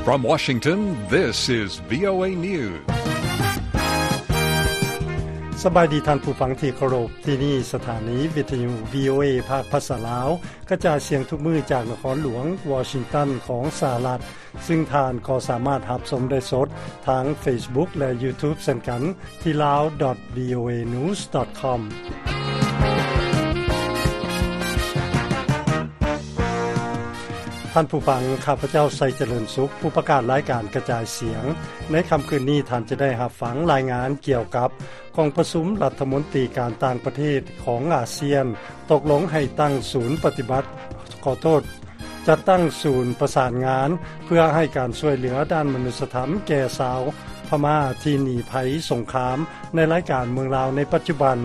From Washington, this is VOA News. ສະບາຍດີທ່ານຜູ້ຟັງທີ່ເຄົາລົບ, ທີ່ນີ້ສະຖານີວິທະຍຸ VOA ພາກພາສາລາວ ກະຈາຍສຽງທຸກມື້ຈາກນະຄອນຫຼວງວໍຊິງຕັນຂອງສະຫະລັດ, ຊຶ່ງທ່ານກໍສາມາດຮັບຊົມໄດ້ສົດທາງ Facebook ແລະ YouTube ເຊັ່ນກັນ ທີ່ lao dot voanews dot com. ທ່ານຜູ້ຟັງ, ຂ້າພະເຈົ້າ ໄຊຈະເລີນສຸກ, ຜູ້ປະກາດລາຍການກະຈາຍສຽງ. ໃນຄ່ຳຄືນນີ້, ທ່ານຈະໄດ້ຮັບຟັງລາຍງານກ່ຽວກັບກອງປະຊຸມລັດຖະມົນຕີການຕ່າງປະເທດຂອງອາຊຽນ ຕົກລົງໃຫ້ຕັ້ງສູນປະຕິບັດ, ຂໍໂທດ, ຈັດຕັ້ງສູນປະສານງານ ເພື່ອໃຫ້ການຊ່ວຍເຫຼືອດ້ານມະນຸດສະທຳແກ່ຊາວພະມ້າທີ່ໜີໄພສົງຄາມໃນລາຍການເມືອງລາວໃນປັດຈຸບັນ,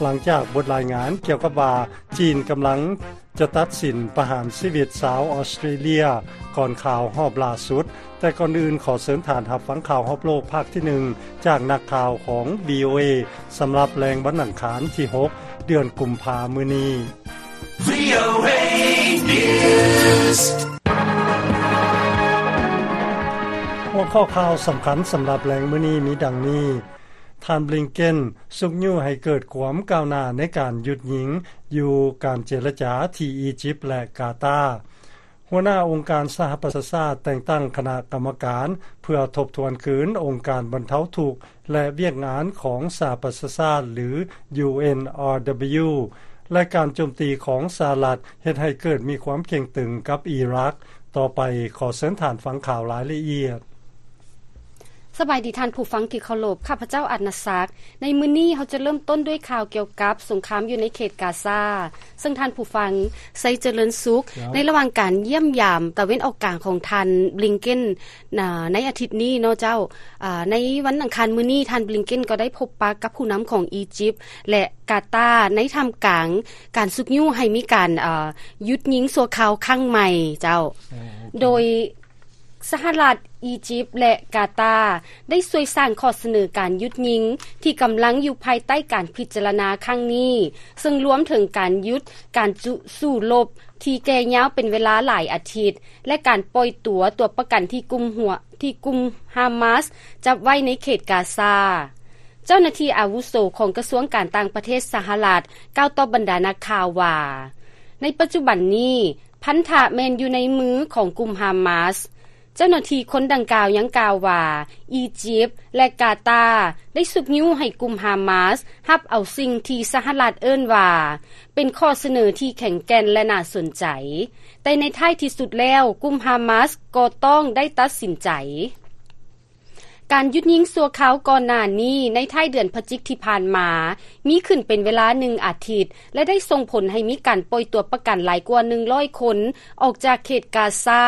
ຫຼັງຈາກບົດລາຍງານກ່ຽວກັບວ່າ ຈີນກຳລັງຈະຕັດສິນປະຫານຊີວິດຊາວອອສເຕຣເລຍກ່ອນຂ່າວຮອບລ່າສຸດ. ແຕ່ກ່ອນອື່ນ, ຂໍເຊີນທ່ານຮັບຟັງຂ່າວຮອບໂລກພາກທີໜຶ່ງ ຈາກນັກຂ່າວຂອງ VOA ສຳລັບແລງວັນອັງຄານທີຫົກ ເດືອນກຸມພາມື້ນີ້. VOA News. ຫົວຂໍ້ຂ່າວສຳຄັນສຳລັບແລງມື້ນີ້ມີດັ່ງນີ້. ທ່ານ ບລິງເກັນ ຊຸກຍູ້ໃຫ້ເກີດຄວາມກ້າວໜ້າໃນການຢຸດຍິງຢູ່ການເຈລະຈາທີ່ອີຢິບ ແລະ ກາຕາ. ຫົວໜ້າອົງການສະຫະປະຊາຊາດແຕ່ງຕັ້ງຄະນະກຳມະການເພື່ອທົບທວນຄືນອົງການບັນເທົາທຸກ ແລະ ວຽກງານຂອງສະຫະປະຊາຊາດ ຫຼື UNRW ແລະ ການໂຈມຕີຂອງສະຫະລັດເຮັດໃຫ້ເກີດມີຄວາມເຄັ່ງຕຶງກັບອີຣັກ. ຕໍ່ໄປ, ຂໍເຊີນທ່ານຟັງຂ່າວລາຍລະອຽດ. ສະບາຍດີທ່ານຜູ້ຟັງທີ່ເຄົາລົບ, ຂ້າພະເຈົ້າ ອັດນະສັກ. ໃນມື້ນີ້ເຮົາຈະເລີ່ມຕົ້ນດ້ວຍຂ່າວກ່ຽວກັບສົງຄາມຢູ່ໃນເຂດກາຊາ, ເຊິ່ງທ່ານຜູ້ຟັງ ໄຊຈະເລີນສຸກ, ໃນລະຫວ່າງການຢ້ຽມຢາມຕາເວັນອອກກາງຂອງທ່ານ ບລິງເກັນ ໃນອາທິດນີ້ເນາະເຈົ້າ. ໃນວັນອັງຄານມື້ນີ້, ທ່ານ ບລິງເກັນ ກໍໄດ້ພົບປະກັບຜູ້ນຳຂອງອີຢິບ ແລະ ກາຕາ ໃນທ່າມກາງການຊຸກຍູ້ໃຫ້ມີການຢຸດຍິງຊົ່ວຄາວຄັ້ງໃໝ່ເຈົ້າ, ໂດຍ ສະຫະລັດ, ອີຢິບ ແລະ ກາຕາ ໄດ້ຊ່ວຍສ້າງຂໍ້ສະເໜີການຢຸດຍິງ ທີ່ກຳລັງຢູ່ພາຍໃຕ້ການພິຈາລະນາຄັ້ງນີ້, ເຊິ່ງລວມເຖິງການຢຸດການສູ້ລົບທີ່ແກ່ຍາວເປັນເວລາຫຼາຍອາທິດ ແລະ ການປ່ອຍຕົວຕົວປະກັນທີ່ກຸ່ມຫົວ, ທີ່ກຸ່ມຮາມາສຈັບໄວ້ໃນເຂດກາຊາ. ເຈົ້າໜ້າທີ່ອາວຸໂສຂອງກະຊວງການຕ່າງປະເທດສະຫະລັດ ກ່າວຕໍ່ບັນດານັກຂ່າວວ່າ, ໃນປັດຈຸບັນນີ້ ພັນທະແມ່ນຢູ່ໃນມືຂອງກຸ່ມຮາມາສ. ເຈົ້າໜ້າທີ່ຄົນດັ່ງກ່າວຍັງກ່າວວ່າ ອີຢິບ ແລະ ກາຕາ ໄດ້ຊຸກຍູ້ໃຫ້ກຸ່ມຮາມາສຮັບເອົາສິ່ງທີ່ສະຫະລັດເອີ້ນວ່າ ເປັນຂໍ້ສະເໜີທີ່ແຂງແກ່ນ ແລະ ໜ້າສົນໃຈ, ແຕ່ໃນທ້າຍທີ່ສຸດແລ້ວ, ກຸ່ມຮາມາສກໍຕ້ອງໄດ້ຕັດສິນໃຈ. ການຢຸດຍິງຊົ່ວຄາວກ່ອນໜ້ານີ້ ໃນທ້າຍເດືອນພະຈິກທີ່ຜ່ານມາ ມີຂຶ້ນເປັນເວລາໜຶ່ງອາທິດ ແລະ ໄດ້ສົ່ງຜົນໃຫ້ມີການປ່ອຍຕົວປະກັນຫຼາຍກວ່າໜຶ່ງຮ້ອຍຄົນອອກຈາກເຂດກາຊາ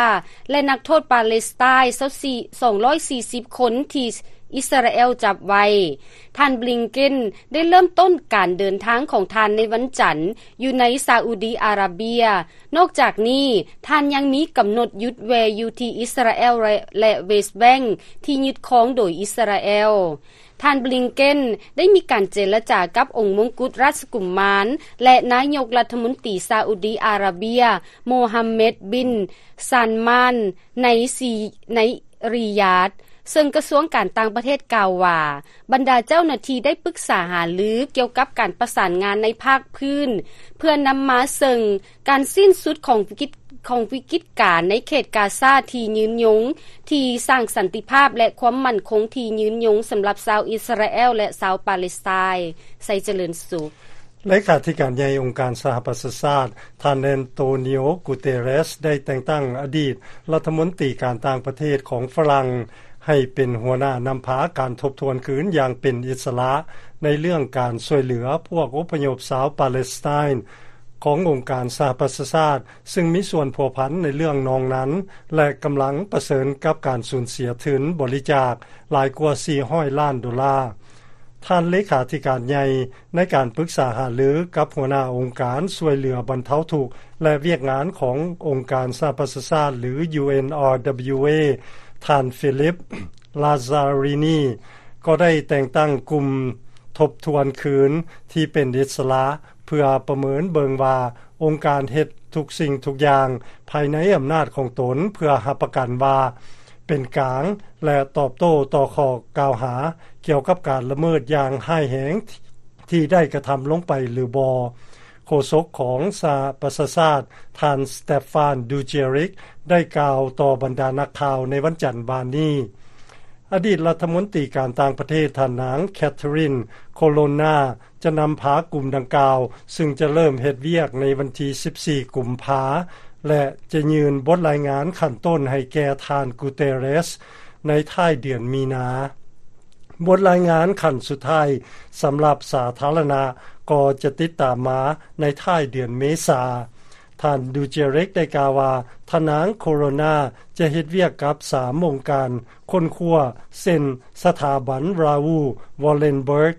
ແລະ ນັກໂທດປາເລສໄຕນ໌ ສອງຮ້ອຍສີ່ສິບຄົນທີ່ອິດສະຣາແອລຈັບໄວ້. ທ່ານ ບລິງເກັນ ໄດ້ເລີ່ມຕົ້ນການເດີນທາງຂອງທ່ານໃນວັນຈັນ ຢູ່ໃນຊາອຸດີອາຣາເບຍ. ນອກຈາກນີ້, ທ່ານຍັງມີກຳນົດຢຸດແວ່ຢູ່ທີ່ອິດສະຣາແອລ ແລະ ແລະ ເວສແບັງ ທີ່ຍຶດຄອງໂດຍອິດສະຣາແອລ. ທ່ານ ບລິງເກັນ ໄດ້ມີການເຈລະຈາກັບອົງມົງກຸດລາຊະກຸມມານ ແລະ ນາຍົກລັດຖະມົນຕີຊາອຸດີອາຣາເບຍ ໂມຮຳເມັດ ບິນ ຊານມານ ໃນ ໃນ ຣິຢາດ, ເຊິ່ງກະຊວງການຕ່າງປະເທດກ່າວວ່າ ບັນດາເຈົ້າໜ້າທີ່ໄດ້ປຶກສາຫາລືກ່ຽວກັບການປະສານງານໃນພາກພື້ນ ເພື່ອນຳມາເຊິ່ງການສິ້ນສຸດຂອງວິກິດ, ຂອງວິກິດການໃນເຂດກາຊາທີ່ຍືນຍົງ, ທີ່ສ້າງສັນຕິພາບ ແລະ ຄວາມໝັ້ນຄົງທີ່ຍືນຍົງສຳລັບຊາວອິດສະຣາແອລ ແລະ ຊາວປາເລສໄຕນ໌. ໄຊຈະເລີນສຸກ. ເລຂາທິການໃຫຍ່ອົງການສະຫະປະຊາຊາດ ທ່ານ ແອນໂຕນິໂອ ກູເຕເຣສ ໄດ້ແຕ່ງຕັ້ງອະດີດລັດຖະມົນຕີການຕ່າງປະເທດຂອງຝຣັ່ງ ໃຫ້ເປັນຫົວໜ້ານຳພາການທົບທວນຄືນຢ່າງເປັນອິດສະຫຼະ ໃນເລື່ອງການຊ່ວຍເຫຼືອພວກອົບພະຍົບຊາວປາເລສໄຕນ໌ ຂອງອົງການສະຫະປະຊາຊາດ, ຊຶ່ງມີສ່ວນພົວພັນໃນເລື່ອງນອງນັນ ແລະ ກຳລັງປະເຊີນກັບການສູນເສຍທຶນບໍລິຈາກຫຼາຍກວ່າສີ່ຮ້ອຍລ້ານໂດລາ. ທ່ານເລຂາທິການໃຫຍ່ໃນການປຶກສາຫາລືກັບຫົວໜ້າອົງການຊ່ວຍເຫຼືອບັນເທົາທຸກ ແລະ ວຽກງານຂອງອົງການສະຫະປະຊາຊາດ ຫຼື UNRWA ທ່ານ ຟີລິບ ລາຊາຣີນີ ກໍໄດ້ແຕ່ງຕັ້ງກຸ່ມທົບທວນຄືນທີ່ເປັນອິດສະຫຼະ ເພື່ອປະເມີນເບິ່ງວ່າອົງການເຮັດທຸກສິ່ງທຸກຢ່າງພາຍໃນອຳນາດຂອງຕົນ ເພື່ອຮັບປະກັນວ່າ ປັນກາງ ແລະ ຕອບໂຕ້ຕໍ່ຂໍ້ກ່າວຫາກ່ຽວກັບການລະເມີດຢ່າງຮ້າຍແຮງທີ່ໄດ້ກະທຳລົງໄປຫຼືບໍ່. ໂຄສົກຂອງສະຫະປະຊາຊາດ ທ່ານ Stephane Dujarric ໄດ້ກ່າວຕໍ່ບັນດານັກຂ່າວໃນວັນຈັນວານນີ້. ອະດີດລັດຖະມົນຕີການຕ່າງປະເທດ ທ່ານນາງ Catherine Colonna ຈະນຳພາກຸ່ມດັ່ງກ່າວ, ຊຶ່ງຈະເລີ່ມເຮັດວຽກໃນວັນທີສິບສີ່ ກຸມພາ ແລະ ຈະຍື່ນບົດລາຍງານຂັ້ນຕົ້ນໃຫ້ແກ່ທ່ານ Guterres ໃນທ້າຍເດືອນມີນາ. ບົດລາຍງານຂັ້ນສຸດທ້າຍສຳລັບສາທາລະນະກໍຈະຕິດຕາມມາໃນທ້າຍເດືອນເມສາ. ທ່ານ Dujarric ໄດ້ກ່າວວ່າ ທ່ານນາງ Colonna ຈະເຮັດວຽກກັບສາມອົງການຄົ້ນຄວ້າ ເຊັ່ນ ສະຖາບັນ Raoul Wallenberg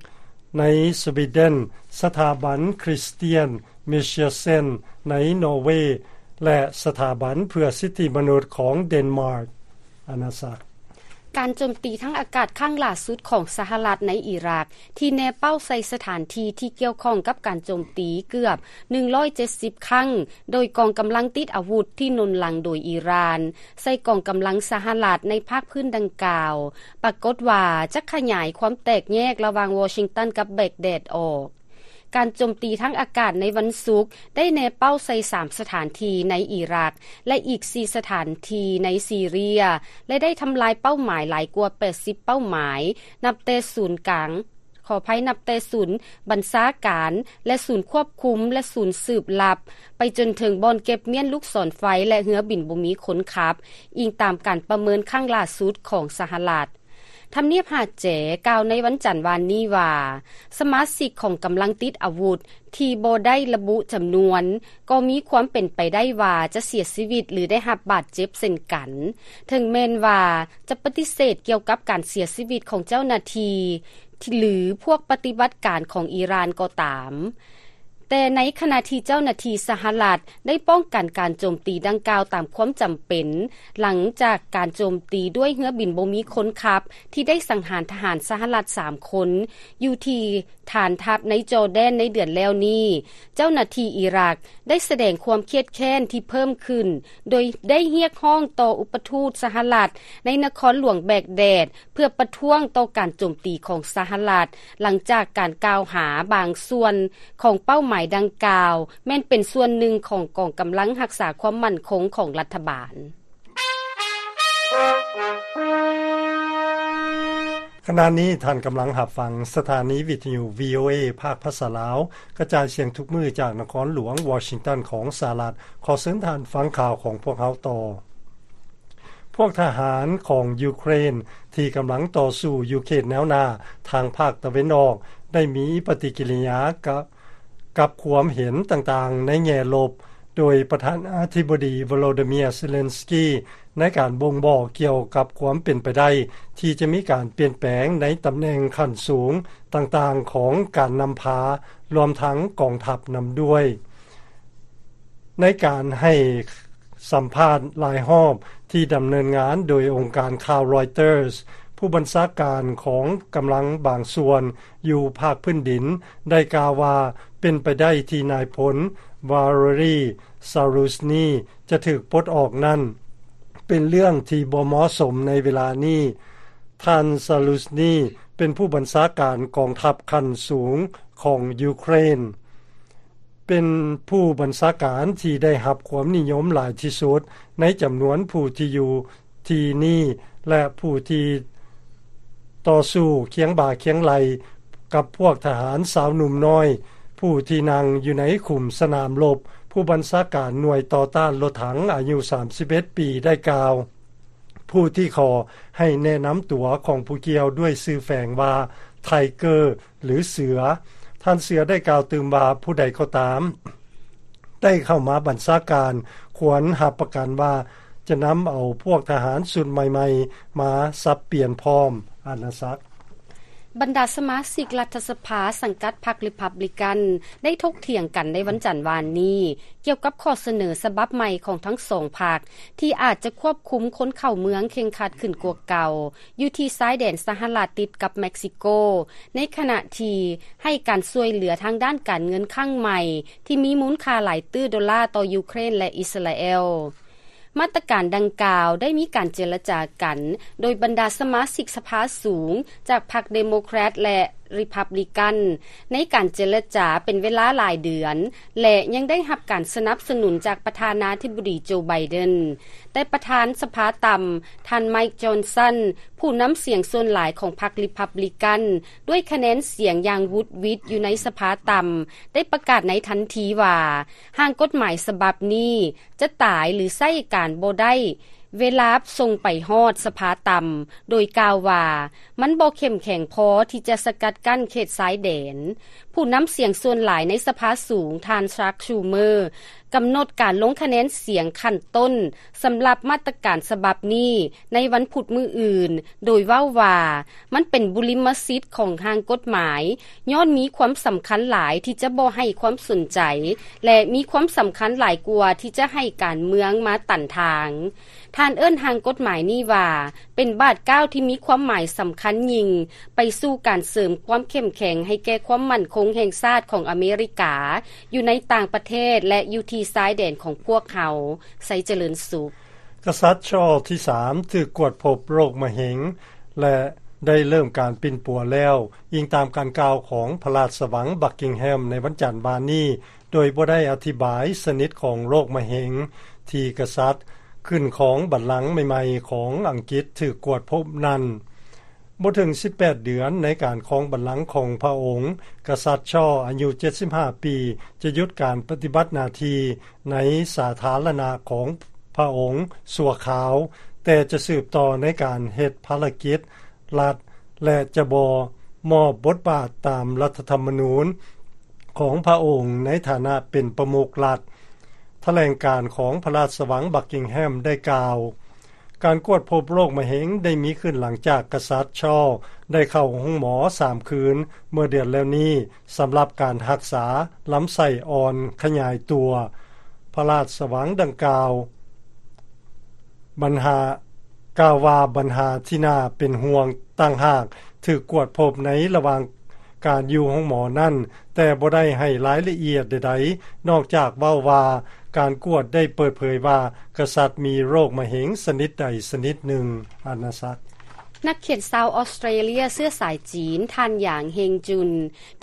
ໃນສະວີເດັນ, ສະຖາບັນ Christian Michelsen ໃນນໍເວ ແລະ ສະຖາບັນເພື່ອສິດທິມະນຸດຂອງເດນມາກ. ອານາສັກ. ການໂຈມຕີທາງອາກາດຄັ້ງຫຼ້າສຸດຂອງສະຫະລັດໃນອີຣັກ ທີ່ແນເປົ້າໃສ່ສະຖານທີ່ທີ່ກ່ຽວຂ້ອງກັບການໂຈມຕີເກືອບໜຶ່ງຮ້ອຍເຈັດສິບຄັ້ງ ໂດຍກອງກຳລັງຕິດອາວຸດທີ່ໜູນຫຼັງໂດຍອີຣານ ໃສ່ກອງກຳລັງສະຫະລັດໃນພາກພື້ນດັ່ງກ່າວ ປາກົດວ່າຈະຂະຫຍາຍຄວາມແຕກແຍກລະຫວ່າງວໍຊິງຕັນກັບແບັກແດດອອກ. ການໂຈມຕີທາງອາກາດໃນວັນສຸກໄດ້ແນເປົ້າໃສ່ສາມສະຖານທີ່ໃນອີຣັກ ແລະ ອີກສີ່ສະຖານທີ່ໃນຊີເຣຍ ແລະ ໄດ້ທຳລາຍເປົ້າໝາຍຫຼາຍກວ່າແປດສິບເປົ້າໝາຍ ນັບແຕ່ສູນກາງ, ຂໍອະໄພ, ນັບແຕ່ສູນບັນຊາການ ແລະ ສູນຄວບຄຸມ ແລະ ສູນສືບລັບ ໄປຈົນເຖິງບ່ອນເກັບມ້ຽນລູກສອນໄຟ ແລະ ເຮືອບິນບໍ່ມີຄົນຂັບ, ອີງຕາມການປະເມີນຄັ້ງຫຼ້າສຸດຂອງສະຫະລັດ. ທຳນຽບຫາດແຈກ່າວໃນວັນຈັນວານນີ້ວ່າ ສະມາຊິກຂອງກຳລັງຕິດອາວຸດທີ່ບໍ່ໄດ້ລະບຸຈຳນວນ ກໍມີຄວາມເປັນໄປໄດ້ວ່າຈະເສຍຊີວິດ ຫຼື ໄດ້ຮັບບາດເຈັບເຊັ່ນກັນ, ເຖິງແມ່ນວ່າຈະປະຕິເສດກ່ຽວກັບການເສຍຊີວິດຂອງເຈົ້າໜ້າທີ່ ຫຼື ພວກປະຕິບັດການຂອງອີຣານກໍຕາມ. ແຕ່ໃນຂະນະທີ່ເຈົ້າໜ້າທີ່ສະຫະລັດໄດ້ປ້ອງກັນການໂຈມຕີດັ່ງກ່າວຕາມຄວາມຈຳເປັນ, ຫຼັງຈາກການໂຈມຕີດ້ວຍເຮືອບິນບໍ່ມີຄົນຂັບທີ່ໄດ້ສັງຫານທະຫານສະຫະລັດສາມຄົນ ຢູ່ທີ່ຖານທັບໃນຈໍແດນໃນເດືອນແລ້ວນີ້, ເຈົ້າໜ້າທີ່ອີຣັກໄດ້ສະແດງຄວາມຄຽດແຄ້ນທີ່ເພີ່ມຂຶ້ນ, ໂດຍໄດ້ຮຽກຮ້ອງຕໍ່ອຸປະທູດສະຫະລັດໃນນະຄອນຫຼວງແບກແດດ ເພື່ອປະທ້ວງຕໍ່ການໂຈມຕີຂອງສະຫະລັດ, ຫຼັງຈາກການກ່າວຫາບາງສ່ວນຂອງເປົ້າໝາຍດັ່ງກ່າວ ແມ່ນເປັນສ່ວນໜຶ່ງຂອງກອງກຳລັງຮັກສາຄວາມໝັ້ນຄົງຂອງລັດຖະບານ. ຂະນະນີ້ທ່ານກຳລັງຮັບຟັງສະຖານີວິທະຍຸ ວີໂອເອ ພາກພາສາລາວ, ກະຈາຍສຽງທຸກມື້ຈາກນະຄອນຫຼວງວໍຊິງຕັນຂອງສະຫະລັດ. ຂໍເຊີນທ່ານຟັງຂ່າວຂອງພວກເຮົາຕໍ່. ພວກທະຫານຂອງຢູເຄຣນທີ່ກຳລັງຕໍ່ສູ້ຢູ່ເຂດແນວໜ້າທາງພາກຕາເວັນອອກ ໄດ້ມີປະຕິກິລິຍາກະ ກັບຄວາມເຫັນຕ່າງໆໃນແງ່ລົບ, ໂດຍປະທານາທິບໍດີ ໂວໂລດີເມຍ ເຊເລັນສກີ ໃນການບົ່ງບອກກ່ຽວກັບຄວາມເປັນໄປໄດ້ທີ່ຈະມີການປ່ຽນແປງໃນຕຳແໜ່ງຂັ້ນສູງຕ່າງໆຂອງການນຳພາ, ລວມທັງກອງທັບນຳດ້ວຍ. ໃນການໃຫ້ສຳພາດຫຼາຍຮອບທີ່ດຳເນີນງານໂດຍອົງການຂ່າວ Reuters, ຜູ້ບັນຊາການຂອງກຳລັງບາງສ່ວນຢູ່ພາກພື້ນດິນໄດ້ກ່າວວ່າ ເປັນໄປໄດ້ທີ່ນາຍພົນ ວາເລຣີ ຊາລູສນີ ຈະຖືກປົດອອກນັ້ນ ເປັນເລື່ອງທີ່ບໍ່ເໝາະສົມໃນເວລານີ້. ທ່ານ ຊາລູສນີ ເປັນຜູ້ບັນຊາການກອງທັບຂັ້ນສູງຂອງຢູເຄຣນ. ເປັນຜູ້ບັນຊາການທີ່ໄດ້ຮັບຄວາມນິຍົມຫຼາຍທີ່ສຸດໃນຈຳນວນຜູ້ທີ່ຢູ່ທີ່ນີ້ ແລະ ຜູ້ທີ່ຕໍ່ສູ້ຄຽງບ່າຄຽງໄຫຼ່ກັບພວກທະຫານຊາວໜຸ່ມນ້ອຍ ຜູ້ທີ່ນັ່ງຢູ່ໃນຂຸມສະໜາມລົບ. ຜູ້ບັນຊາການໜ່ວຍຕໍ່ຕ້ານລົດຖັງອາຍຸສາມສິບເອັດປີໄດ້ກ່າວ. ຜູ້ທີ່ຂໍໃຫ້ແນະນຳຕົວຂອງຜູ້ກ່ຽວດ້ວຍຊື່ແຝງວ່າ Tiger ຫຼື ເສືອ. ທ່ານເສືອໄດ້ກ່າວຕື່ມວ່າ ຜູ້ໃດກໍຕາມໄດ້ເຂົ້າມາບັນຊາການ ຄວນຮັບປະກັນວ່າຈະນຳເອົາພວກທະຫານຊຸດໃໝ່ໆມາສັບປ່ຽນພ້ອມ. ອານາສັກ. ບັນດາສະມາຊິກລັດຖະສະພາສັງກັດພັກ Republican ໄດ້ຖົກຖຽງກັນໃນວັນຈັນວານນີ້ ກ່ຽວກັບຂໍ້ສະເໜີສະບັບໃໝ່ຂອງທັງສອງພັກ ທີ່ອາດຈະຄວບຄຸມຄົນເຂົ້າເມືອງເຄັ່ງຄັດຂຶ້ນກວ່າເກົ່າ ຢູ່ທີ່ຊາຍແດນສະຫະລັດຕິດກັບເມັກຊິໂກ, ໃນຂະນະທີ່ໃຫ້ການຊ່ວຍເຫຼືອທາງດ້ານການເງິນຄັ້ງໃໝ່ ທີ່ມີມູນຄ່າຫຼາຍຕື້ໂດລາຕໍ່ຢູເຄຣນ ແລະ ອິດສະຣາແອລ. ມາດຕະການດັ່ງກ່າວໄດ້ມີການເຈລະຈາກັນ ໂດຍບັນດາສະມາຊິກສະພາສູງຈາກພັກເດໂມແຄຣດ ແລະ ຣີພັບລິກັນ ໃນການເຈລະຈາເປັນເວລາຫຼາຍເດືອນ ແລະ ຍັງໄດ້ຮັບການສະໜັບສະໜູນຈາກປະທານາທິບໍດີໂຈໄບເດັນ. ແຕ່ປະທານສະພາຕ່ຳ ທ່ານໄມຄ໌ ຈອນສັນ ຜູ້ນຳສຽງສ່ວນຫຼາຍຂອງພັກຣີພັບລິກັນ ດ້ວຍຄະແນນສຽງຢ່າງຫວຸດຫວິດຢູ່ໃນສະພາຕ່ຳ ໄດ້ປະກາດໃນທັນທີວ່າ ຮ່າງກົດໝາຍສະບັບນີ້ຈະຕາຍ ຫຼື ໃຊ້ການບໍ່ໄດ້ ເວລາສົ່ງໄປຮອດສະພາຕ່ຳ ໂດຍກ່າວວ່າ ມັນບໍ່ເຂັ້ມແຂງພໍທີ່ຈະສະກັດກັ້ນເຂດຊາຍແດນ. ຜູ້ນຳສຽງສ່ວນຫຼາຍໃນສະພາສູງ ທ່ານ ຊາກ ຊູເມີ ກຳນົດການລົງຄະແນນສຽງຂັ້ນຕົ້ນສຳລັບມາດຕະການສະບັບນີ້ໃນວັນພຸດມື້ອື່ນ ໂດຍເວົ້າວ່າ ມັນເປັນບຸລິມະສິດຂອງຮ່າງກົດໝາຍ ຍ້ອນມີຄວາມສຳຄັນຫຼາຍທີ່ຈະບໍ່ໃຫ້ຄວາມສົນໃຈ ແລະ ມີຄວາມສຳຄັນຫຼາຍກວ່າທີ່ຈະໃຫ້ການເມືອງມາຕັນທາງ. ທ່ານເອີ້ນຮ່າງກົດໝາຍນີ້ວ່າ ເປັນບາດກ້າວທີ່ມີຄວາມໝາຍສຳຄັນຍິ່ງ ໄປສູ່ການເສີມຄວາມເຂັ້ມແຂງໃຫ້ແກ່ຄວາມໝັ້ນຄົງແຫ່ງຊາດຂອງອາເມລິກາ ຢູ່ໃນຕ່າງປະເທດ ແລະ ຢູ່ທີ່ຊາຍແດນຂອງພວກເຮົາ. ໄຊຈະເລີນສຸກ. ກະສັດຊາລສ໌ທີສາມ ຖືກກວດພົບໂລກມະເຮັງ ແລະ ໄດ້ເລີ່ມການປິ່ນປົວແລ້ວ, ອີງຕາມການກ່າວຂອງພະລາຊະວັງບັກກິງແຮມໃນວັນຈັນວານນີ້, ໂດຍບໍ່ໄດ້ອະທິບາຍຊະນິດຂອງໂລກມະເຮັງທີ່ກະສັດຂຶ້ນຄອງບັນລັງໃໝ່ໆຂອງອັງກິດຖືກກວດພົບນັ້ນ. ບໍ່ເຖິງສິບແປດເດືອນໃນການຄອງບັນລັງຂອງພະອົງ, ກະສັດຊາລສ໌ອາຍຸເຈັດສິບຫ້າປີ ຈະຢຸດການປະຕິບັດໜ້າທີ່ໃນສາທາລະນະຂອງພະອົງຊົ່ວຄາວ, ແຕ່ຈະສືບຕໍ່ໃນການເຮັດພາລະກິດລັດ ແລະ ຈະບໍ່ມອບບົດບາດຕາມລັດຖະທຳມະນູນຂອງພະອົງໃນຖານະເປັນປະມຸກລັດ. ຖະແຫຼງການຂອງພະລາຊະວັງບັກກິງແຮມໄດ້ກ່າວ, ການກວດພົບໂລກມະເຮັງໄດ້ມີຂຶ້ນຫຼັງຈາກກະສັດຊາລສ໌ໄດ້ເຂົ້າໂຮງໝໍສາມຄືນເມື່ອເດືອນແລ້ວນີ້ ສຳລັບການຮັກສາລຳໄສ້ອ່ອນຂະຫຍາຍຕົວ. ພະລາຊະວັງດັ່ງກ່າວ ບັນຫາ ກ່າວວ່າບັນຫາທີ່ໜ້າເປັນຫ່ວງຕ່າງຫາກຖືກກວດພົບໃນລະຫວ່າງການຢູ່ໂຮງໝໍນັ້ນ, ແຕ່ບໍ່ໄດ້ໃຫ້ລາຍລະອຽດໃດໆ ນອກຈາກເວົ້າວ່າການກວດໄດ້ເປີດເຜີຍວ່າກະສັດມີໂລກມະເຮັງຊະນິດໃດຊະນິດໜຶ່ງ. ອານາສັກ. ນັກຂຽນຊາວອອສເຕຣເລຍເຊື້ອສາຍຈີນ ທ່ານ ຫຍາງ ເຮງຈຸນ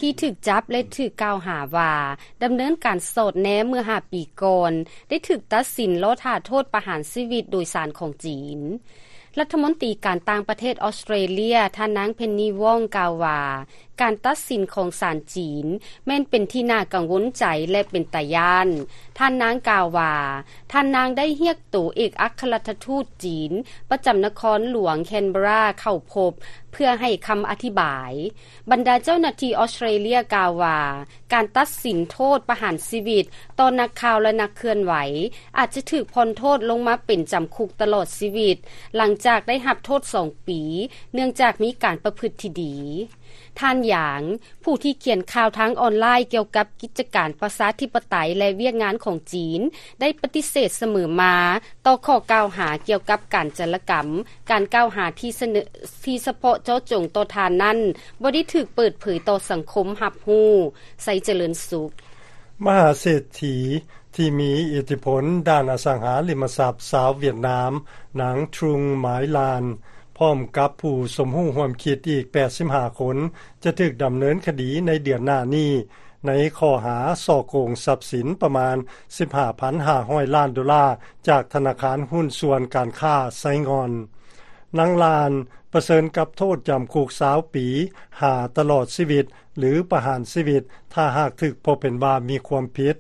ທີ່ຖືກຈັບ ແລະ ຖືກກ່າວຫາວ່າດຳເນີນການສອດແນມເມື່ອຫ້າປີກ່ອນ ໄດ້ຖືກຕັດສິນລໍຖ້າໂທດປະຫານຊີວິດໂດຍສານຂອງຈີນ. ລັດຖະມົນຕີການຕ່າງປະເທດອອສເຕຣເລຍ ທ່ານນາງ ເພັນນີ ວອງ ກ່າວວ່າ ການຕັດສິນຂອງສານຈີນແມ່ນເປັນທີ່ໜ້າກັງວົນໃຈ ແລະ ເປັນຕາຢ້ານ. ທ່ານນາງກ່າວວ່າ ທ່ານນາງໄດ້ຮຽກໂຕເອກອັກຄະລັດຖະທູດຈີນປະຈຳນະຄອນຫຼວງແຄນເບຣາເຂົ້າພົບ ເພື່ອໃຫ້ຄຳອະທິບາຍ. ບັນດາເຈົ້າໜ້າທີ່ອອສເຕຣເລຍກ່າວວ່າ ການຕັດສິນໂທດປະຫານຊີວິດຕໍ່ນັກຂ່າວ ແລະ ນັກເຄື່ອນໄຫວ ອາດຈະຖືກຜ່ອນໂທດລົງມາເປັນຈຳຄຸກຕະຫຼອດຊີວິດ ຫຼັງຈາກໄດ້ຮັບໂທດສອງປີ ເນື່ອງຈາກມີການປະພຶດທີ່ດີ. ທ່ານ ຫຍາງ ຜູ້ທີ່ຂຽນຂ່າວທາງອອນລາຍກ່ຽວກັບກິດຈະການປະຊາທິປະໄຕ ແລະ ວຽກງານຂອງຈີນ ໄດ້ປະຕິເສດສະເໝີມາຕໍ່ຂໍ້ກ່າວຫາກ່ຽວກັບການຈາລະກຳ. ການກ່າວຫາທີ່ສະເໜີ ທີ່ສະເພາະເຈາະຈົງຕໍ່ທ່ານນັ້ນ ບໍ່ໄດ້ຖືກເປີດເຜີຍຕໍ່ສັງຄົມຮັບຮູ້. ໄຊຈະເລີນສຸກ. ມະຫາເສດຖີທີ່ມີອິດທິພົນດ້ານອະສັງຫາລິມະຊັບຊາວຫວຽດນາມ ນາງ Trung Mai Lan ພ້ອມກັບຜູ້ສົມຮູ້ຮ່ວມຄິດອີກແປດສິບຫ້າຄົນ ຈະຖືກດຳເນີນຄະດີໃນເດືອນໜ້ານີ້ ໃນຂໍ້ຫາສໍ້ໂກງຊັບສິນປະມານສິບຫ້າພັນຫ້າຮ້ອຍລ້ານໂດລາ ຈາກທະນາຄານຫຸ້ນສ່ວນການຄ້າໄຊງ່ອນ. ນາງ Lan ປະເຊີນກັບໂທດຈຳຄຸກຊາວປີ ຫາຕະຫຼອດຊີວິດ ຫຼື ປະຫານຊີວິດ ຖ້າຫາກຖືກພົບເຫັນວ່າມີຄວາມຜິດ.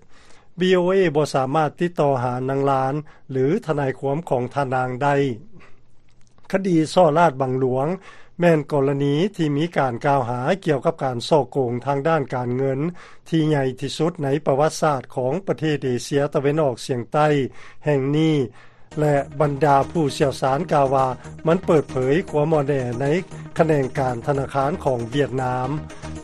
ວີໂອເອ ບໍ່ສາມາດຕິດຕໍ່ຫານາງ Lan ຫຼື ທະນາຍຄວາມຂອງທ່ານນາງໄດ້. ຄະດີສໍ້ລາດບັງຫຼວງ ແມ່ນກໍລະນີທີ່ມີການກ່າວຫາກ່ຽວກັບການສໍ້ໂກງທາງດ້ານການເງິນທີ່ໃຫຍ່ທີ່ສຸດໃນປະຫວັດສາດຂອງປະເທດເອເຊຍຕາເວັນອອກສຽງໃຕ້ແຫ່ງນີ້ ແລະ ບັນດາຜູ້ຊ່ຽວຊານກ່າວວ່າ ມັນເປີດເຜີຍຄວາມອ່ອນແອໃນຂະແໜງການທະນາຄານຂອງຫວຽດນາມ.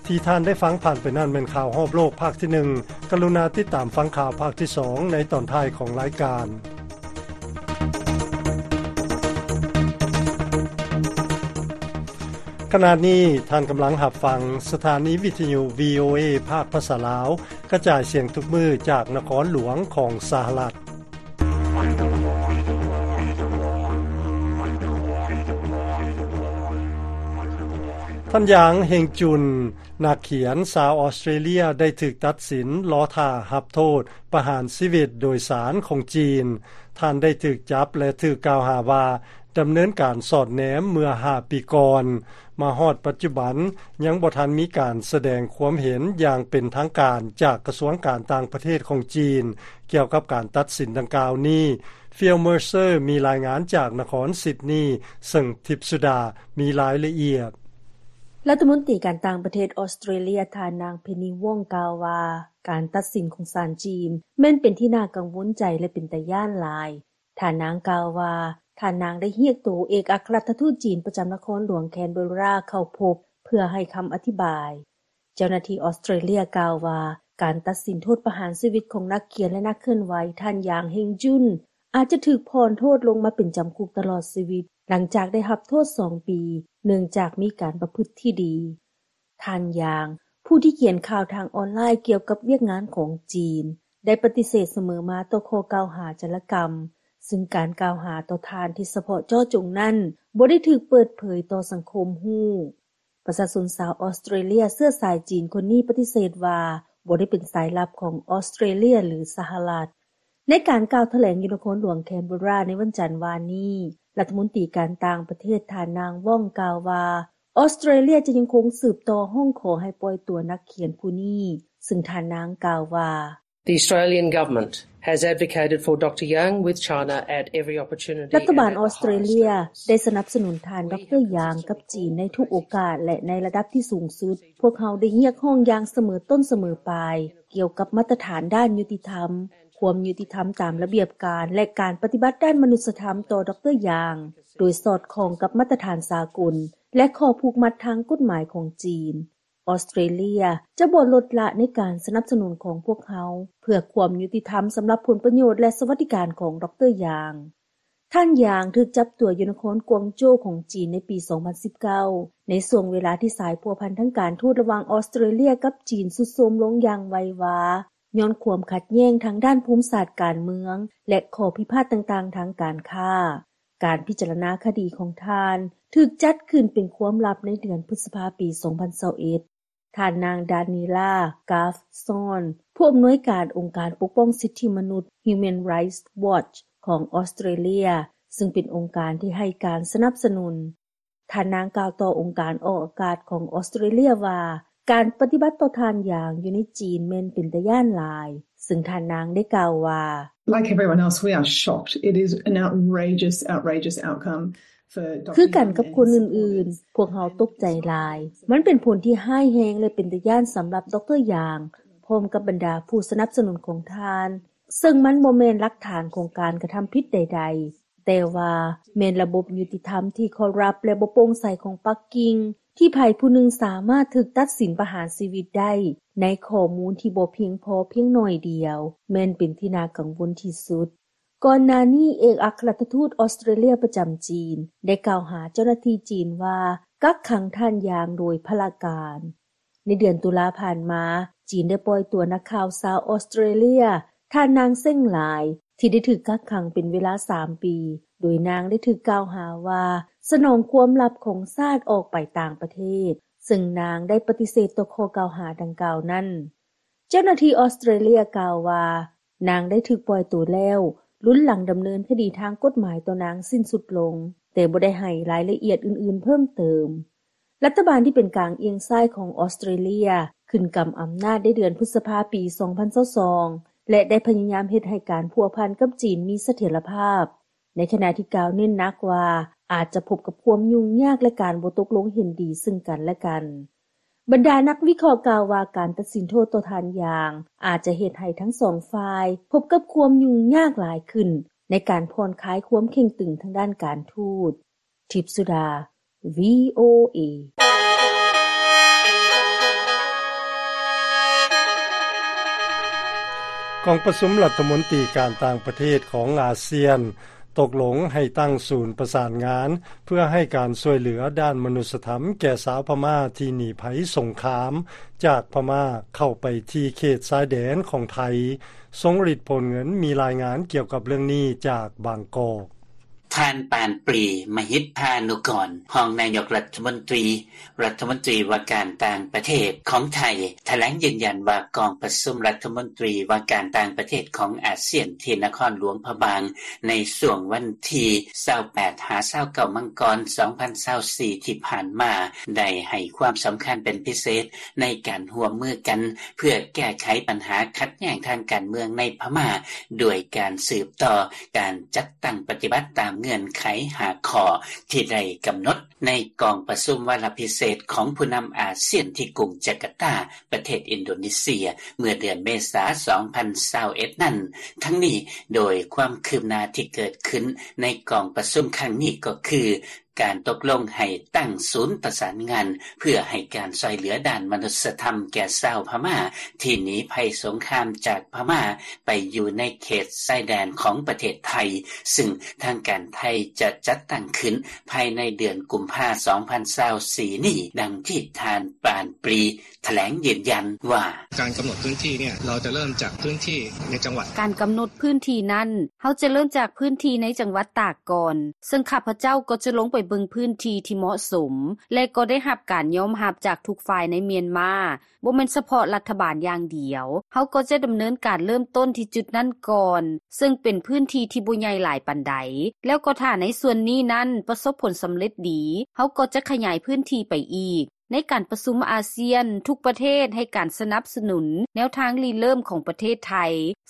ທີ່ທ່ານໄດ້ຟັງຜ່ານໄປນັ້ນແມ່ນຂ່າວຮອບໂລກພາກທີໜຶ່ງ. ກະລຸນາຕິດຕາມຟັງຂ່າວພາກທີສອງໃນຕອນທ້າຍຂອງລາຍການ. ຂະນະນີ້ທ່ານກຳລັງຮັບຟັງສະຖານີວິທະຍຸ ວີໂອເອ ພາກພາສາລາວ ກະຈາຍສຽງທຸກມື້ຈາກນະຄອນຫຼວງຂອງສະຫະລັດ. ທ່ານ ຢາງ ເຮັງຈຸນ ນັກຂຽນຊາວອອສເຕຣເລັຽ ໄດ້ຖືກຕັດສິນລໍຖ້າຮັບໂທດປະຫານຊີວິດໂດຍສານຂອງຈີນ. ທ່ານໄດ້ຖືກຈັບ ແລະ ຖືກກ່າວຫາວ່າດຳເນີນການສອດແນມເມື່ອຫ້າປີກ່ອນ. ມາຮອດປັດຈຸບັນ ຍັງບໍ່ທັນມີການສະແດງຄວາມເຫັນຢ່າງເປັນທາງການຈາກກະຊວງການຕ່າງປະເທດຂອງຈີນ ກ່ຽວກັບການຕັດສິນດັ່ງກ່າວນີ້. ຟີລ ເມີເຊີ ມີລາຍງານຈາກນະຄອນຊິດນີ ເຊິ່ງທິບສຸດາມີລາຍລະອຽດ. ລັດຖະມົນຕີການຕ່າງປະເທດອອສເຕຣເລັຽ ທ່ານນາງ ເພັນນີ ວອງ ກ່າວວ່າ ການຕັດສິນຂອງສານຈີນແມ່ນເປັນທີ່ໜ້າກັງວົນໃຈ ແລະ ເປັນຕາຢ້ານຫຼາຍ. ທ່ານນາງກ່າວວ່າ ທ່ານນາງໄດ້ຮຽກໂຕເອກອັກຄະລັດຖະທູດຈີນປະຈຳນະຄອນຫຼວງແຄນເບີຣາເຂົ້າພົບ ເພື່ອໃຫ້ຄຳອະທິບາຍ. ເຈົ້າໜ້າທີ່ອອສເຕຣເລັຽກ່າວວ່າ ການຕັດສິນໂທດປະຫານຊີວິດຂອງນັກຂຽນ ແລະ ນັກເຄື່ອນໄຫວ ທ່ານ ຢາງ ເຮັງຈຸນ ອາດຈະຖືກຜ່ອນໂທດລົງມາເປັນຈຳຄຸກຕະຫຼອດຊີວິດ ຫຼັງຈາກໄດ້ຮັບໂທດສອງປີ ເນື່ອງຈາກມີການປະພຶດທີ່ດີ. ທ່ານ ຢາງ ຜູ້ທີ່ຂຽນຂ່າວທາງອອນລາຍກ່ຽວກັບວຽກງານຂອງຈີນ ໄດ້ປະຕິເສດສະເໝີມາຕໍ່ຂໍ້ກ່າວຫາຈາລະກຳ, ຊຶ່ງການກ່າວຫາຕໍ່ທ່ານທີ່ສະເພາະເຈາະຈົງນັ້ນ ບໍ່ໄດ້ຖືກເປີດເຜີຍຕໍ່ສັງຄົມຮູ້. ປະຊາຊົນຊາວອອສເຕຣເລັຽເຊື້ອສາຍຈີນຄົນນີ້ປະຕິເສດວ່າ ບໍ່ໄດ້ເປັນສາຍລັບຂອງອອສເຕຣເລັຽ ຫຼື ສະຫະລັດ. ໃນການກ່າວຖະແຫຼງຢູ່ນະຄອນຫຼວງແຄນເບີຣາໃນວັນຈັນວານນີ້, ລັດຖະມົນຕີການຕ່າງປະເທດ ທ່ານນາງ ວອງ ກ່າວວ່າ ອອສເຕຣເລັຽຈະຍັງຄົງສືບຕໍ່ຮ້ອງຂໍໃຫ້ປ່ອຍຕົວນັກຂຽນຜູ້ນີ້, ຊຶ່ງທ່ານນາງກ່າວວ່າ The Australian government has advocated for Dr Yang with China at every opportunity. ລັດຖະບານອອສເຕຣເລັຽໄດ້ສະໜັບສະໜູນທ່ານ ດຣ ຢາງ ກັບຈີນໃນທຸກໂອກາດ ແລະ ໃນລະດັບທີ່ສູງສຸດ. ພວກເຮົາໄດ້ຮຽກຮ້ອງຢ່າງສະເໝີຕົ້ນສະເໝີປາຍ ກ່ຽວກັບມາດຕະຖານດ້ານຍຸຕິທຳ, ຄວາມຍຸຕິທຳຕາມລະບຽບການ ແລະ ການປະຕິບັດດ້ານມະນຸດສະທຳຕໍ່ ດຣ ຢາງ ໂດຍສອດຄ່ອງກັບມາດຕະຖານສາກົນ ແລະ ຂໍ້ຜູກມັດທາງກົດໝາຍຂອງຈີນ. ອອສເຕຣເລັຽຈະບໍ່ລົດລະໃນການສະໜັບສະໜູນຂອງພວກເຮົາ ເພື່ອຄວາມຍຸຕິທຳສຳລັບຜົນປະໂຫຍດ ແລະ ສະຫວັດດີການຂອງ ດຣ ຢາງ. ທ່ານ ຢາງ ຖືກຈັບຕົວຢູ່ນະຄອນກວາງໂຈຂອງຈີນໃນປີສອງພັນສິບເກົ້າ ໃນຊ່ວງເວລາທີ່ສາຍພົວພັນທາງການທູດລະຫວ່າງອອສເຕຣເລັຽກັບຈີນຊຸດໂຊມລົງຢ່າງໄວວາ ຍ້ອນຄວາມຂັດແຍ່ງທາງດ້ານພູມສາດການເມືອງ ແລະ ຂໍ້ພິພາດຕ່າງໆທາງການຄ້າ. ການພິຈາລະນາຄະດີຂອງທ່ານຖືກຈັດຂຶ້ນເປັນຄວາມລັບໃນເດືອນພຶດສະພາປີສອງພັນຊາວເອັດ. ທ່ານນາງ ດານີລາ ກາຟຊອນ ຜູ້ອຳນວຍການອົງການປົກປ້ອງສິດທິມະນຸດ Human Rights Watch ຂອງອອສເຕຣເລັຽ ຊຶ່ງເປັນອົງການທີ່ໃຫ້ການສະໜັບສະໜູນ. ທ່ານນາງກ່າວຕໍ່ອົງການອອກອາກາດຂອງອອສເຕຣເລັຽວ່າ ການປະຕິບັດຕໍ່ທ່ານ ຢາງ ຢູ່ໃນຈີນແມ່ນເປັນຕາຢ້ານຫຼາຍ, ຊຶ່ງທ່ານນາງໄດ້ກ່າວວ່າ Like everyone else, we are shocked. It is an outrageous, outrageous outcome for Dr ຄືກັນກັບຄົນອື່ນໆ, ພວກເຮົາຕົກໃຈຫຼາຍ. ມັນເປັນຜົນທີ່ຮ້າຍແຮງ ແລະ ເປັນຕາຢ້ານສຳລັບ ດຣ ຢາງ ພ້ອມກັບບັນດາຜູ້ສະໜັບສະໜູນຂອງທ່ານ, ເຊິ່ງມັນບໍ່ແມ່ນຫຼັກຖານຂອງການກະທຳຜິດໃດໆ, ແຕ່ວ່າແມ່ນລະບົບຍຸຕິທຳທີ່ຄໍຣັບ ແລະ ບໍ່ໂປ່ງໃສຂອງປັກກິ່ງ ທີ່ໃຜຜູ້ໜຶ່ງສາມາດຖືກຕັດສິນປະຫານຊີວິດໄດ້ ໃນຂໍ້ມູນທີ່ບໍ່ພຽງພໍພຽງໜ້ອຍດຽວ ແມ່ນເປັນທີ່ໜ້າກັງວົນທີ່ສຸດ. ກ່ອນໜ້ານີ້ ເອກອັກຄະລັດຖະທູດອອສເຕຣເລັຽປະຈຳຈີນ ໄດ້ກ່າວຫາເຈົ້າໜ້າທີ່ຈີນວ່າ ກັກຂັງທ່ານ ຢາງ ໂດຍພະລະການ. ໃນເດືອນຕຸລາຜ່ານມາ, ຈີນໄດ້ປ່ອຍຕົວນັກຂ່າວຊາວອອສເຕຣເລັຽ ທ່ານນາງ ເຊັງ ຫຼາຍ ທີ່ໄດ້ຖືກກັກຂັງເປັນເວລາສາມປີ, ໂດຍນາງໄດ້ຖືກກ່າວຫາວ່າ ສະໜອງຄວາມລັບຂອງຊາດອອກໄປຕ່າງປະເທດ, ເຊິ່ງນາງໄດ້ປະຕິເສດຕໍ່ຂໍ້ກ່າວຫາດັ່ງກ່າວນັ້ນ. ເຈົ້າໜ້າທີ່ອອສເຕຣເລັຽກ່າວວ່າ ນາງໄດ້ຖືກປ່ອຍຕົວແລ້ວ, ລຸນຫຼັງດຳເນີນຄະດີທາງກົດໝາຍຕໍ່ນາງສິ້ນສຸດລົງ, ແຕ່ບໍ່ໄດ້ໃຫ້ລາຍລະອຽດອື່ນໆເພີ່ມເຕີມ. ລັດຖະບານທີ່ເປັນກາງອຽງຊ້າຍຂອງອອສເຕຣເລັຽ ຂຶ້ນກຳອຳນາດໃນເດືອນພຶດສະພາປີສອງພັນຊາວສອງ ແລະ ໄດ້ພະຍາຍາມເຮັດໃຫ້ການພົວພັນກັບຈີນມີສະຖຽນລະພາບ. ໃນຂະນະທີ່ກ່າວເນັ້ນໜັກວ່າ ອາດຈະພົບກັບຄວາມຫຍຸ້ງຍາກ ແລະ ການບໍ່ຕົກລົງເຫັນດີເຊິ່ງກັນແລະກັນ. ບັນດານັກວິເຄາະກ່າວວ່າ ການຕັດສິນໂທດຕໍ່ທ່ານ ຢາງ ອາດຈະເຮັດໃຫ້ທັງສອງຝ່າຍພົບກັບຄວາມຫຍຸ້ງຍາກຫຼາຍຂຶ້ນ ໃນການຜ່ອນຄາຍຄວາມເຄັ່ງຕຶງທາງດ້ານການທູດ. ທິບສຸດາ ວີໂອເອ. ກອງປະຊຸມລັດຖະມົນຕີການຕ່າງປະເທດຂອງອາຊຽນ ຕົກລົງໃຫ້ຕັ້ງສູນປະສານງານ ເພື່ອໃຫ້ການຊ່ວຍເຫຼືອດ້ານມະນຸດສະທຳແກ່ຊາວພະມ້າທີ່ໜີໄພສົງຄາມຈາກພະມ້າເຂົ້າໄປທີ່ເຂດຊາຍແດນຂອງໄທ. ຊົງລິດ ໂພນເງິນ ມີລາຍງານກ່ຽວກັບເລື່ອງນີ້ຈາກບາງກອກ. ທ່ານ ປານປຣີ ມະຫິດພານຸກອນ ຮອງນາຍົກລັດຖະມົນຕີ ລັດຖະມົນຕີວ່າການຕ່າງປະເທດຂອງໄທ ຖະແຫຼງຢືນຢັນວ່າກອງປະຊຸມລັດຖະມົນຕີວ່າການຕ່າງປະເທດຂອງອາຊຽນ ທີ່ນະຄອນຫຼວງພະບາງ ໃນຊ່ວງວັນທີຊາວແປດຫາຊາວເກົ້າ ມັງກອນ ສອງພັນຊາວສີ່ ທີ່ຜ່ານມາ ໄດ້ໃຫ້ຄວາມສຳຄັນເປັນພິເສດ ໃນການຮ່ວມມືກັນ ເພື່ອແກ້ໄຂບັນຫາຂັດແຍ່ງທາງການເມືອງໃນພະມ້າ ດ້ວຍການສືບຕໍ່ການຈັດຕັ້ງປະຕິບັດຕາມເງື່ອນໄຂຫ້າຂໍ້ ທີ່ໄດ້ກຳນົດໃນກອງປະຊຸມວາລະພິເສດຂອງຜູ້ນຳອາຊຽນ ທີ່ກຸງຈາກາຕາ ປະເທດອິນໂດເນເຊຍ ເມື່ອເດືອນເມສາ ສອງພັນຊາວເອັດ ນັ້ນ. ທັງນີ້, ໂດຍຄວາມຄືບໜ້າທີ່ເກີດຂຶ້ນໃນກອງປະຊຸມຄັ້ງນີ້ກໍຄື ການຕົກລົງໃຫ້ຕັ້ງສູນປະສານງານ ເພື່ອໃຫ້ການຊ່ວຍເຫຼືອດ້ານມະນຸດສະທຳແກ່ຊາວພະມ້າ ທີ່ໜີໄພສົງຄາມຈາກພະມ້າໄປຢູ່ໃນເຂດຊາຍແດນຂອງປະເທດໄທ, ຊຶ່ງທາງການໄທຈະຈັດຕັ້ງຂຶ້ນພາຍໃນເດືອນກຸມພາ ສອງພັນຊາວສີ່ ນີ້, ດັ່ງທີ່ທ່ານ ປານປຣີ ຖະແຫຼງຢືນຢັນວ່າ: ການກຳນົດພື້ນທີ່ເນຍ ເຮົາຈະເລີ່ມຈາກພື້ນທີ່ໃນຈັງຫວັດ. ການກຳນົດພື້ນທີ່ນັ້ນ ເຮົາຈະເລີ່ມຈາກພື້ນທີ່ໃນຈັງຫວັດຕາກກ່ອນ, ເຊິ່ງຂ້າພະເຈົ້າກໍຈະລົງໄປເບິ່ງພື້ນທີ່ທີ່ເໝາະສົມ ແລະ ກໍໄດ້ຮັບການຍອມຮັບຈາກທຸກຝ່າຍໃນມຽນມາ, ບໍ່ແມ່ນສະເພາະລັດຖະບານຢ່າງດຽວ. ເຮົາກໍຈະດຳເນີນການເລີ່ມຕົ້ນທີ່ຈຸດນັ້ນກ່ອນ, ເຊິ່ງເປັນພື້ນທີ່ທີ່ບໍ່ໃຫຍ່ຫຼາຍປານໃດ, ແລ້ວກໍຖ້າໃນສ່ວນນີ້ນັ້ນປະສົບຜົນສຳເລັດດີ, ເຮົາກໍຈະຂະຫຍາຍພື້ນທີ່ໄປອີກ. ໃນການປະຊຸມອາຊຽນ, ທຸກປະເທດໃຫ້ການສະໜັບສະໜູນແນວທາງລິເລີ່ມຂອງປະເທດໄທ,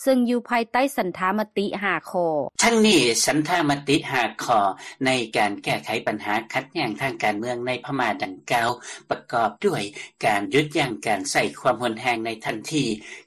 ເຊິ່ງຢູ່ພາຍໃຕ້ສັນທາມະຕິຫ້າຂໍ້. ທັງນີ້, ສັນທາມະຕິຫ້າຂໍ້ໃນການແກ້ໄຂບັນຫາຂັດແຍ່ງທາງການເມືອງໃນພະມ້າດັ່ງກ່າວ ປະກອບດ້ວຍ ການຢຸດຢັ້ງການໃຊ້ຄວາມຮຸນແຮງໃນທັນທີ,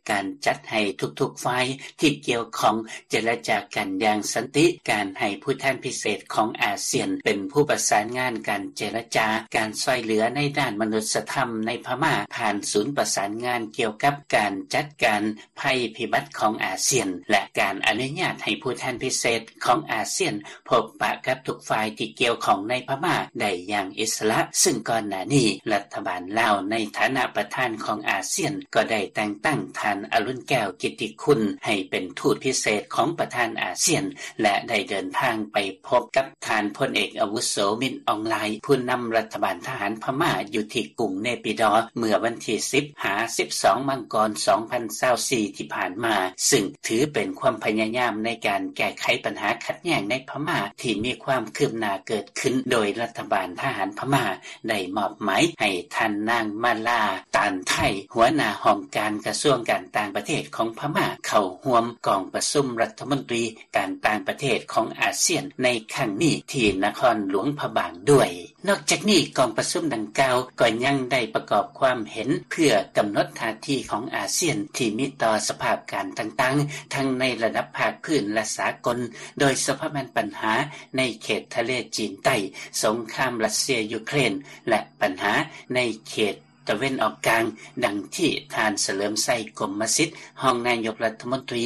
ການຈັດໃຫ້ທຸກໆຝ່າຍທີ່ກ່ຽວຂ້ອງເຈລະຈາກັນຢ່າງສັນຕິ, ການໃຫ້ຜູ້ແທນພິເສດຂອງອາຊຽນເປັນຜູ້ປະສານງານການເຈລະຈາ, ການຊ່ວຍເຫຼືອໃນດ້ານມະນຸດສະທຳໃນພະມ້າຜ່ານສູນປະສານງານກ່ຽວກັບການຈັດການໄພພິບັດຂອງອາຊຽນ ແລະ ການອະນຸຍາດໃຫ້ຜູ້ແທນພິເສດຂອງອາຊຽນ ພົບປະກັບທຸກຝ່າຍທີ່ກ່ຽວຂ້ອງໃນພະມ້າໄດ້ຢ່າງອິດສະຫຼະ, ຊຶ່ງກ່ອນໜ້ານີ້ລັດຖະບານລາວໃນຖານະປະທານຂອງອາຊຽນ ກໍໄດ້ແຕ່ງຕັ້ງທ່ານ ອະລຸນແກ້ວ ກິດຕິຄຸນ ໃຫ້ເປັນທູດພິເສດຂອງປະທານອາຊຽນ ແລະ ໄດ້ເດີນທາງໄປພົບກັບທ່ານພົນເອກອາວຸໂສ ມິນ ອອງລາຍ ຜູ້ນຳລັດຖະບານທະຫານພະມ້າຢູ່ທີ່ກຸງເນປິດໍ ເມື່ອວັນທີສິບຫາສິບສອງ ມັງກອນ ສອງພັນຊາວສີ່ ທີ່ຜ່ານມາ, ຊຶ່ງຖືເປັນຄວາມພະຍາຍາມໃນການແກ້ໄຂບັນຫາຂັດແຍ່ງໃນພະມ້າທີ່ມີຄວາມຄືບໜ້າເກີດຂຶ້ນ, ໂດຍລັດຖະບານທະຫານພະມ້າໄດ້ມອບໝາຍໃຫ້ທ່ານນາງ ມາລາ ຕານໄທ ຫົວໜ້າຫ້ອງການກະຊວງການຕ່າງປະເທດຂອງພະມ້າ ເຂົ້າຮ່ວມກອງປະຊຸມລັດຖະມົນຕີການຕ່າງປະເທດຂອງອາຊຽນໃນຄັ້ງນີ້ທີ່ນະຄອນຫຼວງພະບາງດ້ວຍ. ນອກຈາກນີ້, ກອງປະຊຸມດັ່ງກ່າວກໍຍັງໄດ້ປະກອບຄວາມເຫັນເພື່ອກຳນົດທ່າທີຂອງອາຊຽນທີ່ມີຕໍ່ສະພາບການຕ່າງໆ ທັງໃນລະດັບພາກພື້ນ ແລະ ສາກົນ, ໂດຍສະເພາະແມ່ນບັນຫາໃນເຂດທະເລຈີນໃຕ້, ສົງຄາມຣັດເຊຍ-ຢູເຄຣນ ແລະ ບັນຫາໃນເຂດຕາເວັນອອກກາງ, ດັ່ງທີ່ທ່ານ ສະເຫຼີມໄຊ ກົມມະສິດ ຮອງນາຍົກລັດຖະມົນຕີ,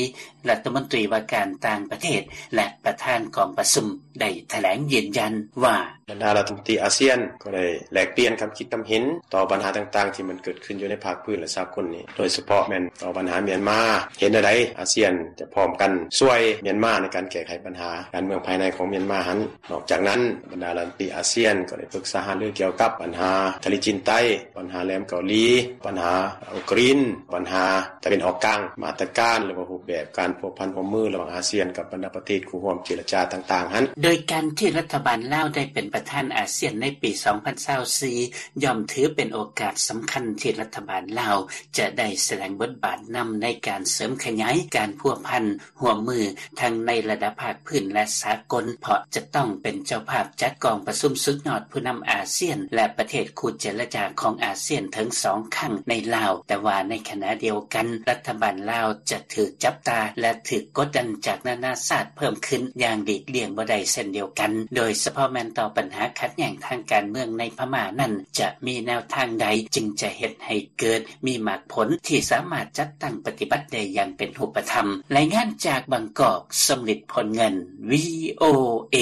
ລັດຖະມົນຕີວ່າການຕ່າງປະເທດ ແລະ ປະທານກອງປະຊຸມ ໄດ້ຖະແຫຼງຢືນຢັນວ່າ: ບັນດາລັດຖະມົນຕີອາຊຽນກໍໄດ້ແລກປ່ຽນຄຳຄິດຄຳເຫັນຕໍ່ບັນຫາຕ່າງໆທີ່ມັນເກີດຂຶ້ນຢູ່ໃນພາກພື້ນ ແລະ ສາກົນນີ້, ໂດຍສະເພາະແມ່ນຕໍ່ບັນຫາມຽນມາ, ເຫັນແນວໃດອາຊຽນຈະພ້ອມກັນຊ່ວຍມຽນມາໃນການແກ້ໄຂບັນຫາການເມືອງພາຍໃນຂອງມຽນມາຫັ້ນ. ນອກຈາກນັ້ນ, ບັນດາລັດຖະມົນຕີອາຊຽນກໍໄດ້ປຶກສາຫາລືກ່ຽວກັບບັນຫາທະເລຈີນໃຕ້, ບັນຫາແຫຼມເກົາຫຼີ, ບັນຫາອຸກຣິນ, ບັນຫາຕາເວັນອອກກາງ, ມາດຕະການ ຫຼືວ່າຮູບແບບການພົວພັນຮ່ວມມືລະຫວ່າງອາຊຽນກັບບັນດາປະເທດຄູ່ຮ່ວມເຈລະຈາຕ່າງໆຫັ້ນ. ໂດຍການທີ່ລັດຖະບານລາວໄດ້ເປັນປະທານອາຊຽນໃນປີສອງພັນຊາວສີ່ ຍ່ອມຖືເປັນໂອກາດສຳຄັນທີ່ລັດຖະບານລາວຈະໄດ້ສະແດງບົດບາດນຳໃນການເສີມຂະຫຍາຍການພົວພັນ ຮ່ວມມືທັງໃນລະດັບພາກພື້ນ ແລະ ສາກົນ, ເພາະຈະຕ້ອງເປັນເຈົ້າພາບຈັດກອງປະຊຸມສຸດຍອດຜູ້ນຳອາຊຽນ ແລະ ປະເທດຄູ່ເຈລະຈາຂອງອາຊຽນເຖິງສອງຄັ້ງໃນລາວ, ແຕ່ວ່າໃນຂະນະດຽວກັນ ລັດຖະບານລາວຈະຖືກຈັບຕາ ແລະ ຖືກກົດດັນຈາກນານາຊາດເພີ່ມຂຶ້ນຢ່າງຫຼີກລ່ຽງບໍ່ໄດ້ເຊັ່ນດຽວກັນ, ໂດຍສະເພາະແມ່ນຕໍ່ບັນຫາຂັດແຍ່ງທາງການເມືອງໃນພະມ້ານັ້ນ ຈະມີແນວທາງໃດຈຶ່ງຈະເຮັດໃຫ້ເກີດ ມີໝາກຜົນທີ່ສາມາດຈັດຕັ້ງປະຕິບັດໄດ້ຢ່າງເປັນຮູບປະທຳ. ລາຍງານຈາກບາງກອກ, ສົມລິດ ພົນເງິນ, ວີໂອເອ.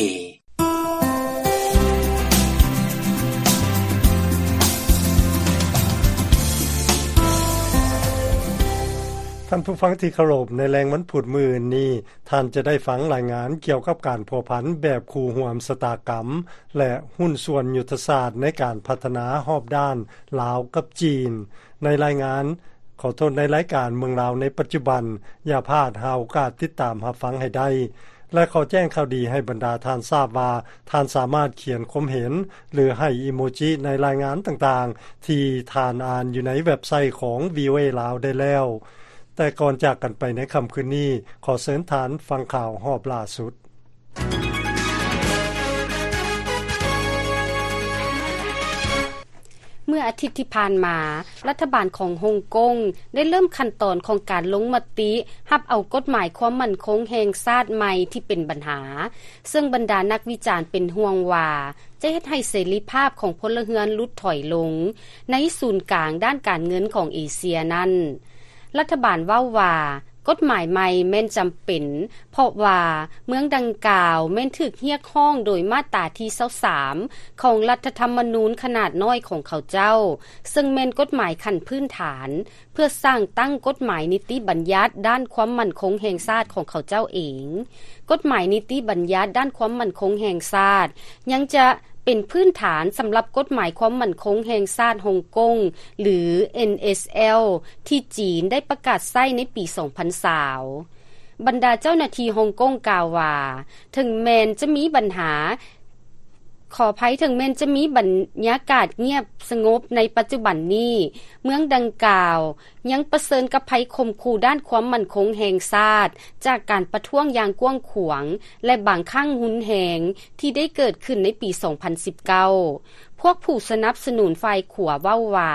ທ່านผู้ฟังที่เคารพ ในแลงวันพุธมื้อนี้ ท่านจะได้ฟังรายงานเกี่ยวกับการพัวพันแบบคู่ร่วมชะตากรรม และหุ้นส่วนยุทธศาสตร์ในการพัฒนาฮอบด้านลาวกับจีน ในรายงาน ขอโทษ ในรายการเมืองลาวในปัจจุบัน อย่าพลาดหาโอกาสติดตามรับฟังให้ได้ และขอแจ้งข่าวดีให้บรรดาท่านทราบว่า ท่านสามารถเขียนความเห็น หรือให้อีโมจิในรายงานต่างๆ ที่ท่านอ่านอยู่ในเว็บไซต์ของ วีโอเอ ลาวได้แล้ว แต่ก่อนจากกันไปในค่ำคืนนี้ ขอเชิญท่านฟังข่าวฮอบล่าสุด เมื่ออาทิตย์ที่ผ่านมา รัฐบาลของฮ่องกงได้เริ่มขั้นตอนของการลงมติรับเอากฎหมายความมั่นคงแห่งชาติใหม่ที่เป็นปัญหา ซึ่งบรรดานักวิจารณ์เป็นห่วงว่า จะเฮ็ดให้เสรีภาพของพลเรือนหลุดถอยลง ในศูนย์กลางด้านการเงินของเอเชียนั้น รัฐบาลเว้าว่า กฎหมายใหม่แม่นจำเป็น เพราะว่าเมืองดังกล่าวแม่นถูกเรียกร้องโดยมาตราที่ซาวสาม ของรัฐธรรมนูญขนาดน้อยของเขาเจ้า ซึ่งแม่นกฎหมายขั้นพื้นฐาน เพื่อสร้างตั้งกฎหมายนิติบัญญัติด้านความมั่นคงแห่งชาติของเขาเจ้าเอง กฎหมายนิติบัญญัติด้านความมั่นคงแห่งชาติ ยังจะเป็นพื้นฐานสำหรับกฎหมายความมั่นคงแห่งชาติฮ่องกง หรือ เอ็นเอชแอล ที่จีนได้ประกาศใช้ในปีสองพันซาว บรรดาเจ้าหน้าที่ฮ่องกงกล่าวว่า ถึงแม้นจะมีปัญหา ขออภัย ถึงแม้นจะมีบรรยากาศเงียบสงบในปัจจุบันนี้ เมืองดังกล่าวยังเผชิญกับภัยข่มขู่ด้านความมั่นคงแห่งชาติ จากการประท้วงอย่างกว้างขวาง และบางครั้งรุนแรงที่ได้เกิดขึ้นในปีสองพันสิบเก้า พวกผู้สนับสนุนฝ่ายขวาเว้าว่า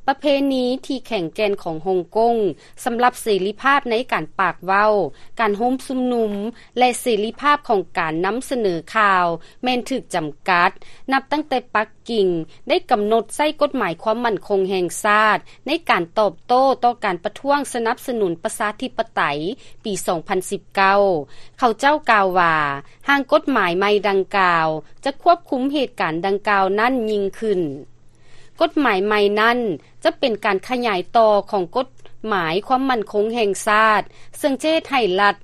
ประเพณีที่แข็งแกร่งของฮ่องกงสำหรับเสรีภาพในการปากเว้า การโฮมชุมนุม และเสรีภาพของการนำเสนอข่าวแม่นถูกจำกัด นับตั้งแต่ปักกิ่งได้กำหนดใช้กฎหมายความมั่นคงแห่งชาติ ในการตอบโต้ต่อการประท้วงสนับสนุนประชาธิปไตยปีสองพันสิบเก้า เขาเจ้ากล่าวว่า ร่างกฎหมายใหม่ดังกล่าว จะควบคุมเหตุการณ์ดังกล่าวนั้นยิ่งขึ้น กฎหมายใหม่นั้นจะเป็นการขยายต่อของกฎหมายความมั่นคงแห่งชาติ ซึ่งจะเฮ็ดให้ลัท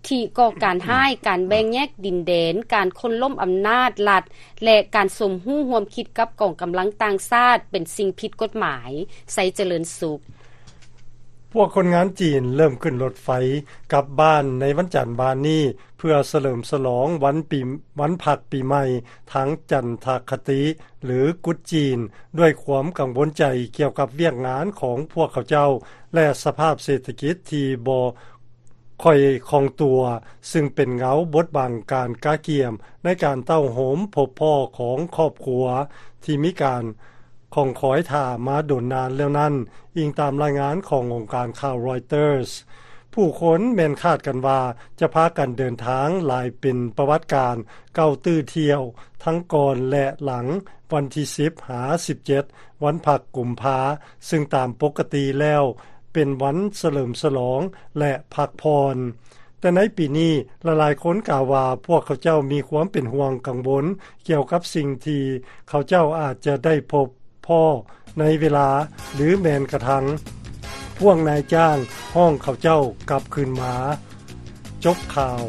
ธิก่อการร้าย การแบ่งแยกดินแดน การโค่นล้มอำนาจรัฐ และการสมรู้ร่วมคิดกับกองกำลังต่างชาติเป็นสิ่งผิดกฎหมาย ไซเจริญสุข พวกคนงานจีนเริ่มขึ้นรถไฟกลับบ้านในวันจันทร์บ่ายนี้ เพื่อเฉลิมฉลองวันปี วันพักปีใหม่ทางจันทคติ หรือกุดจีน ด้วยความกังวลใจเกี่ยวกับเวียกงานของพวกเขาเจ้า และสภาพเศรษฐกิจที่บ่ค่อยคล่องตัว ซึ่งเป็นเงาบดบังการกะเกียมในการเต้าโฮมพบพ้อของครอบครัวที่มีการ ของคอยท่ามาโดนนานแล้วนั้น อิงตามรายงานขององค์การข่าวรอยเตอร์ส ผู้คนแม่นคาดกันว่าจะพากันเดินทางหลายเป็นประวัติการเก้าตื้อเที่ยว ทั้งก่อนและหลังวันที่สิบหาสิบเจ็ด วันพักกุมภา ซึ่งตามปกติแล้วเป็นวันเฉลิมฉลองและพักผ่อน แต่ในปีนี้หลายๆคนกล่าวว่าพวกเขาเจ้ามีความเป็นห่วงกังวลเกี่ยวกับสิ่งที่เขาเจ้าอาจจะได้พบพ้อในเวลา หรือแม้นกระทั่งพวกนายจ้างฮ้องเขาเจ้ากลับคืนมา จบข่าว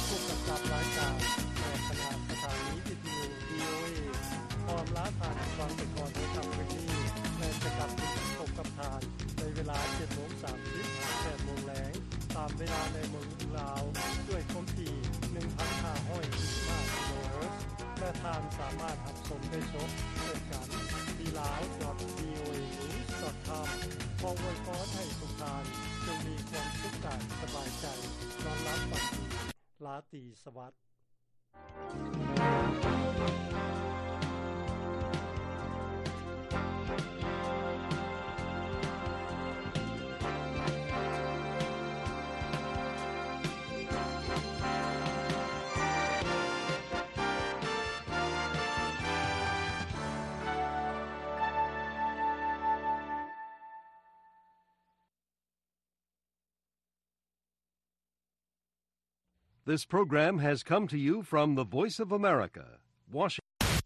ผู้กำกับรายการ และคณะสถานีวิทยุ วีโอเอ ขออำลาท่านผู้ฟังไปก่อนในค่ำคืนนี้ และจะกลับมาพบกับท่านในเวลาเจ็ดโมงสามสิบหาแปดโมงแลง ตามเวลาในเมืองลาว ด้วยความถี่ หนึ่งพันห้าร้อยสี่สิบห้า กิโลเฮิรตซ์ และท่านสามารถรับชมได้สดเช่นกัน ที่ ลาว ดอท วีโอเอ นิวส์ ดอท คอม ขออวยพรให้ทุกท่านจงมีความสุขกายสบายใจ นอนหลับฝันดี ราตรีสวัสดิ์ This program has come to you from the Voice of America, Washington.